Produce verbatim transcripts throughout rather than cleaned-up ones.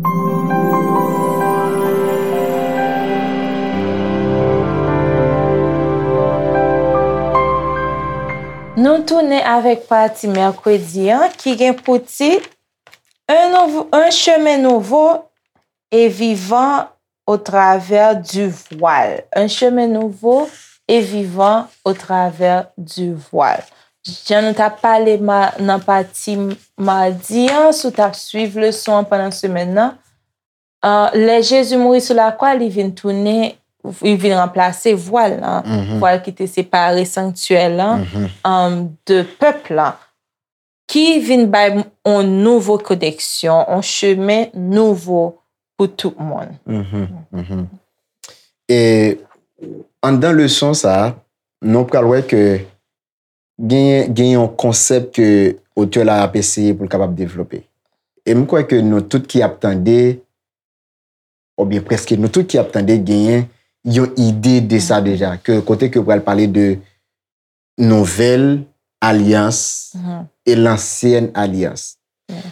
Nou tounen avèk pati mèkredi an ki gen pou tit Un, nouvo, un chemin nouveau et vivant au travers du voile. Un chemin nouveau et vivant au travers du voile. Jan nou t ap pale ma, nan pati madi an, si w t ap swiv leson an pandan semèn nan, uh, lè Jezi mouri sou lakwa, li vin tounen, li vin ranplase vwal lan, vwal ki te separe sanktyè lan, um, de pèp lan, ki vin bay yon nouvo koneksyon, yon chemen nouvo pou tout moun. E anndan leson sa a, nou pral wè ke gen, gen yon konsèp ke otè la ap eseye pou l kapab devlope. E m kwè ke nou tout ki ap tande, oubyen prèske nou tout ki ap tande, genyen yon ide de sa deja, ke kote ke yo pral pale de nouvèl alyans e lansyèn alyans.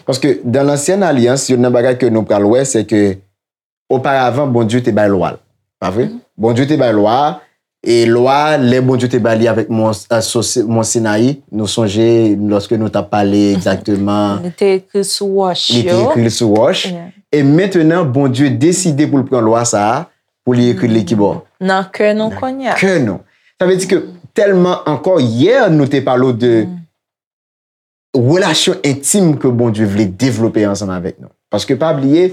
Paske dan lansyèn alyans, youn nan bagay ke nou pral wè, se ke oparavan, Bondye te bay lwa l. Pa vre? Bondye te bay lwa a, e lwa a, lè Bondye te bay li avèk Mont, euh, so, Mont Sinayi, nou sonje lòske nou t ap pale egzakteman. Li te ekri sou wòch yo. Li te ekri l sou wòch. E mentenan, Bondye deside pou l pran lwa sa a, pou li ekri l li kibò? Nan kè nou kounye a. Nan kè nou. Sa vle di ke tèlman ankò, yè nou te pale w de relasyon entim ke Bondye vle devlope ansanm avèk nou. Paske pa bliye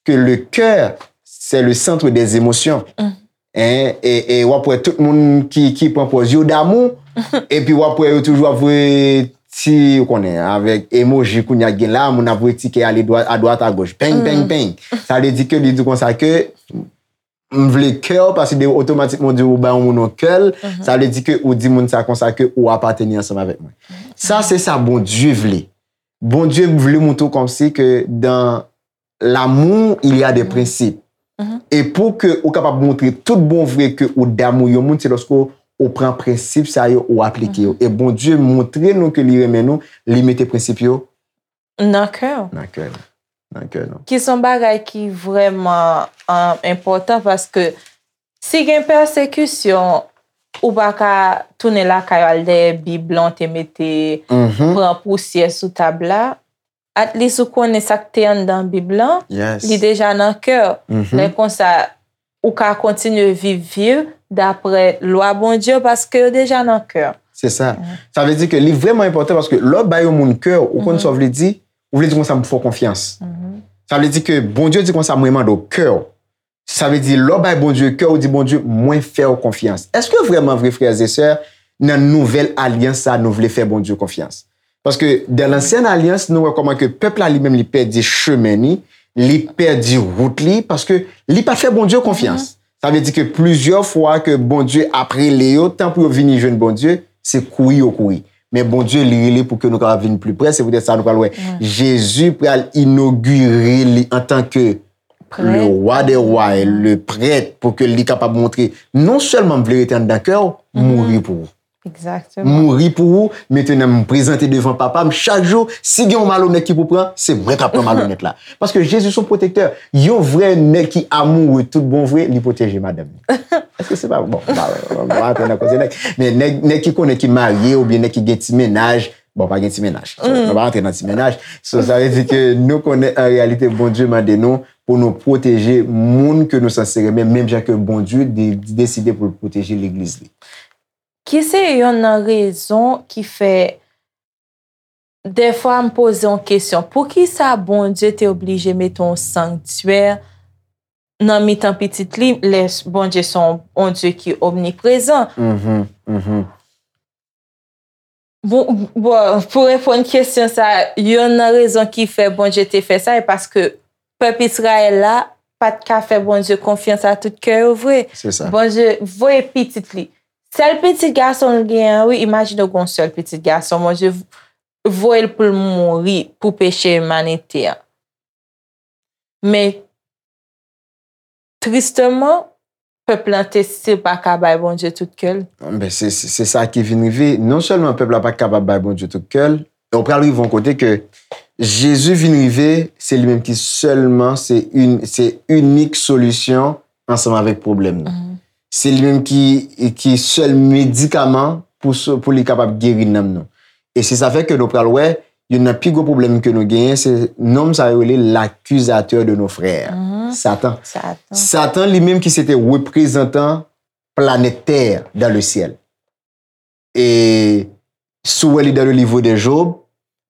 ke le cœur, c'est le centre des émotions. Hein? E, e w ap wè tout moun ki, ki pran pòz yo damou, epi w ap wè yo toujou ap voye ti, ou konnen, avèk emoji kounye a gen la, moun ap voye ti kè ale dwa, a dwat a goch. Peng, peng, peng. Sa vle di ke li di konsa ke m vle kè w, paske de otomatikman w di ou bay yon moun yon kè l, sa vle di ke ou di moun sa konsa ke ou apateni ansanm avèk mwen. Sa se sa Bondye vle. Bondye vle montre w kòmsi ke dans l'amour, il y a des principes. E pou ke ou kapab montre tout bon vre ke ou damou yon moun, se lòske ou pran prensip sa yo, ou aplike yo. E Bondye montre nou ke li renmen nou, li mete prensip yo nan kè w. Nan kè nou. Nan kè nou. Ki se yon bagay ki vrèman, um, enpòtan, paske si gen pèsekisyon, ou pa ka tounen lakay ou al dèyè Bib lan w te mete, pran pousyè sou tab la. At least ou konnen sa k te anndan Bib lan, li deja nan kè w. Lè konsa, ou ka kontinye viv, viv daprè lwa Bondye yo, paske yo deja nan kè w. Se sa. Sa vle di ke li vrèman enpòtan, paske lè w bay yon moun kè w, ou konn sa w vle di, ou vle di konsa m fè w konfyans. Sa vle di ke Bondye di konsa, mwen mande w kè w. Sa vle di lè w bay Bondye kè w, ou di Bondye, mwen fè w konfyans. Èske vrèman vre, frè e sè, nan nouvèl alyans sa, nou vle fè Bondye konfyans? Paske dan lansyèn alyans, nou wè kòman ke pèp la li menm li pèdi chemen ni, li pèdi wout li, paske li pa t fè Bondye konfyans. Sa vle di ke plizyè fwa ke Bondye ap rele yo, tan pou yo vini jwenn Bondye, se kouri yo kouri. Men Bondye, li rele pou ke nou kapab vin pli pre. Se poutèt sa nou pral wè Jezi pral inogire li antanke le wa dè wa e le prèt, pou ke li kapab montre, non sèlman m vle rete anndan kè w, mouri pou ou. Mouri pou ou, mentenan m prezante devan Papa m chak jou, si gen yon malonèt ki pou pran, se mwen k ap pran malonèt la. Paske Jezi se yon pwotektè. Yon vrè nèg ki amoure tout bon vre, li pwoteje madanm li. Èske se pa bon? M pa, m pa antre nan koze nèg. Men nèg, nèg ki konnen ki marye oubyen nèg ki gen ti mennaj, bon, pa gen ti mennaj. So, nou pa antre nan ti mennaj. So, sa vle di ke nou konnen an reyalite Bondye mande nou pou nou pwoteje moun ke nou sanse renmen, menm jan ke Bondye de, deside pou l pwoteje legliz li. Ki se yonn nan rezon ki fè, dèfwa m poze yon kesyon, poukisa Bondye te oblije mete yon sanktyè nan mitan pitit li, lè Bondye se yon, yon Dye ki omniprezan? Bon, bon, pou reponn kesyon sa, yonn nan rezon ki fè Bondye te fè sa, e paske pèp Izrayèl la pa t ka fè Bondye konfyans a tout kè yo vre. Se sa. Bondye voye pitit li. Sèl pitit gason l genyen an, wi, imajine w gen yon sèl pitit gason, Bondye voye l pou l mouri pou peche imanite an. Men, tristeman, pèp lan te still pa ka bay Bondye tout kè l. Ben, se, se, se sa ki vin rive. Non sèlman pèp la pa t kapab bay Bondye tout kè l, men ou pral rive yon kote ke Jezi vin rive, se li menm ki sèlman, se in, se inik solisyon ansanm avèk pwoblèm nou. Se li menm ki, ki sèl medikaman pou, so- pou li kapab geri nanm nou. E se sa fè ke nou pral wè, youn nan pi gwo pwoblèm ke nou genyen, se nonm sa yo rele l'accusateur de nos frères. Satan. Satan. Satan li menm ki se te reprezantan planèt tè dans le ciel. E si w wè li dans le livre de Job,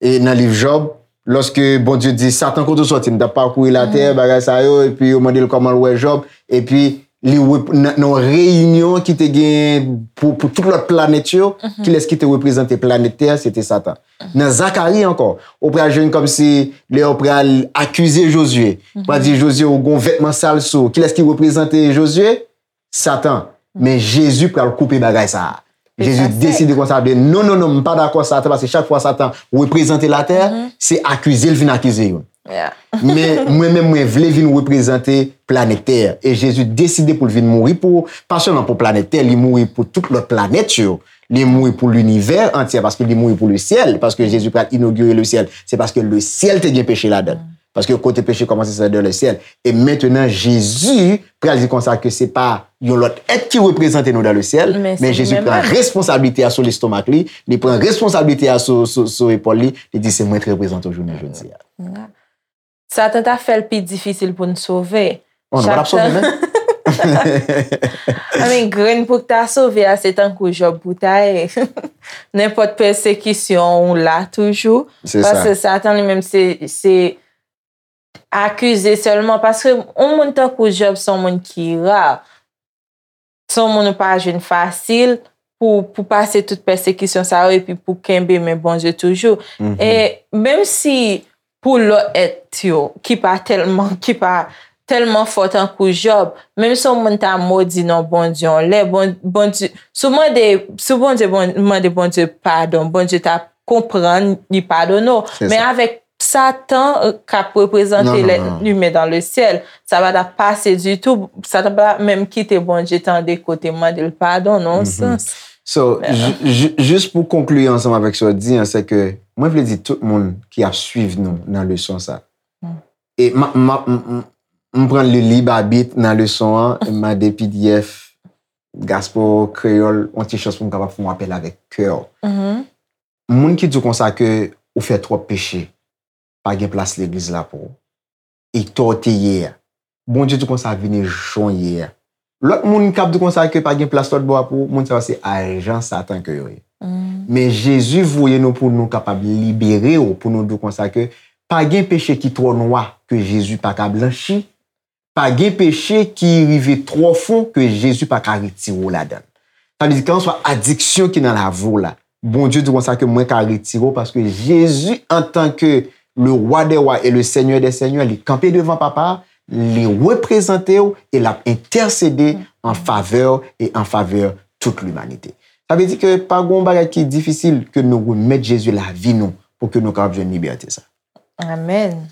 e nan liv Jòb, lòske Bondye di, Satan, kote w sòti? M t ap pakouri latè, bagay sa yo, epi yo mande l kòman l wè Jòb, epi li wè nan, nan yon reyinyon ki te gen pou, pou tout lòt planèt yo, kilès ki te reprezante planèt tè a? Se te Satan. Nan Zakari ankò, ou pral jwenn kòmsi lè yo pral akize Jozye, pral di Jozye, ou gon vètman sal sou ou. Kilès ki reprezante Jozye? Satan. Men Jezi pral koupe bagay sa a. Jezi deside konsa, de non, non, non, m pa dakò Satan, paske chak fwa Satan reprezante latè, se akize l vin akize youn. Men mwen menm, mwen vle vin reprezante planèt tè. E Jezi deside pou l vin mouri pou, pa sèlman pou planèt tè, li mouri pou tout lòt planèt yo. Li mouri pou linivè antye, paske li mouri pou le syèl, paske Jezi pral inogire le syèl. Se paske le syèl te gen peche ladan l. Paske kote peche kòmanse, se dans le ciel. E mentenan, Jezi pral di konsa ke se pa yon lòt èt ki reprezante nou dans le ciel, men Jezi pran responsablite a sou lestomak li, li pran responsablite a sou, sou, sou epòl li, li di, se mwen ki reprezante w jounen jodi a. Satan ta fè l pi difisil pou n sove. Oh, nou pa t ap sove, men. I mean, grenn pou w ta sove a, se tankou Jòb pou ta ye. Nenpòt pèsekisyon, ou la toujou. Paske Satan li menm, se, se akize sèlman. Paske yon moun tankou Jòb, se yon moun ki ra. Se yon moun ou pa jwenn fasil pou, pou pase tout pèsekisyon sa yo epi pou kenbe men Bondye toujou. E menm si pou lòt èt yo ki pa tèlman, ki pa tèlman fò tankou Jòb, menm si yon moun ta modi non Bondye, yon lè Bon- Bondye, si w mande, si Bondye bon- mande Bondye padon, Bondye ta konprann, li padone w. Men avèk Satan k ap reprezante lèt imen dans le ciel, sa pa t ap pase ditou. Satan pa t ap menm kite Bondye tande kote mande l padon nan yon sans. So, jis pou konkli ansanm avèk sa w di an, se ke mwen vle di tout moun ki ap swiv nou nan leson sa. E m, m, m, m, m pran li lib abit nan leson an, m mande P D F, Gaspo, Kreyòl, yon ti chans pou m kapab fè yon apèl avèk kè w. Moun ki di w konsa ke ou fè twòp peche, pa gen plas legliz la pou ou. E tò w te ye a. Bondye di w konsa vini jan w ye a. Lòt moun k ap di w konsa ke pa gen plas lòt bò a pou ou, moun sa yo se ajan Satan ke yo ye. Men Jezi voye nou pou nou kapab libere w, pou nou di w konsa ke pa gen peche ki twò nwa ke Jezi pa ka blanchi, pa gen peche ki rive twò fon ke Jezi pa ka retire w ladan l. Sa vle di, kèlkanswa adiksyon ki nan lavi w la, Bondye di konsa ke mwen ka retire w, paske Jezi, antanke le Roi des rois et le Seigneur des seigneurs, li kanpe devan Papa a, li reprezante w e l ap entèsede an favè w e an favè tout limanite. Sa vle di ke pa gen yon bagay ki difisil ke nou remèt Jezi lavi nou pou ke nou kapab jwenn libète sa. Amèn.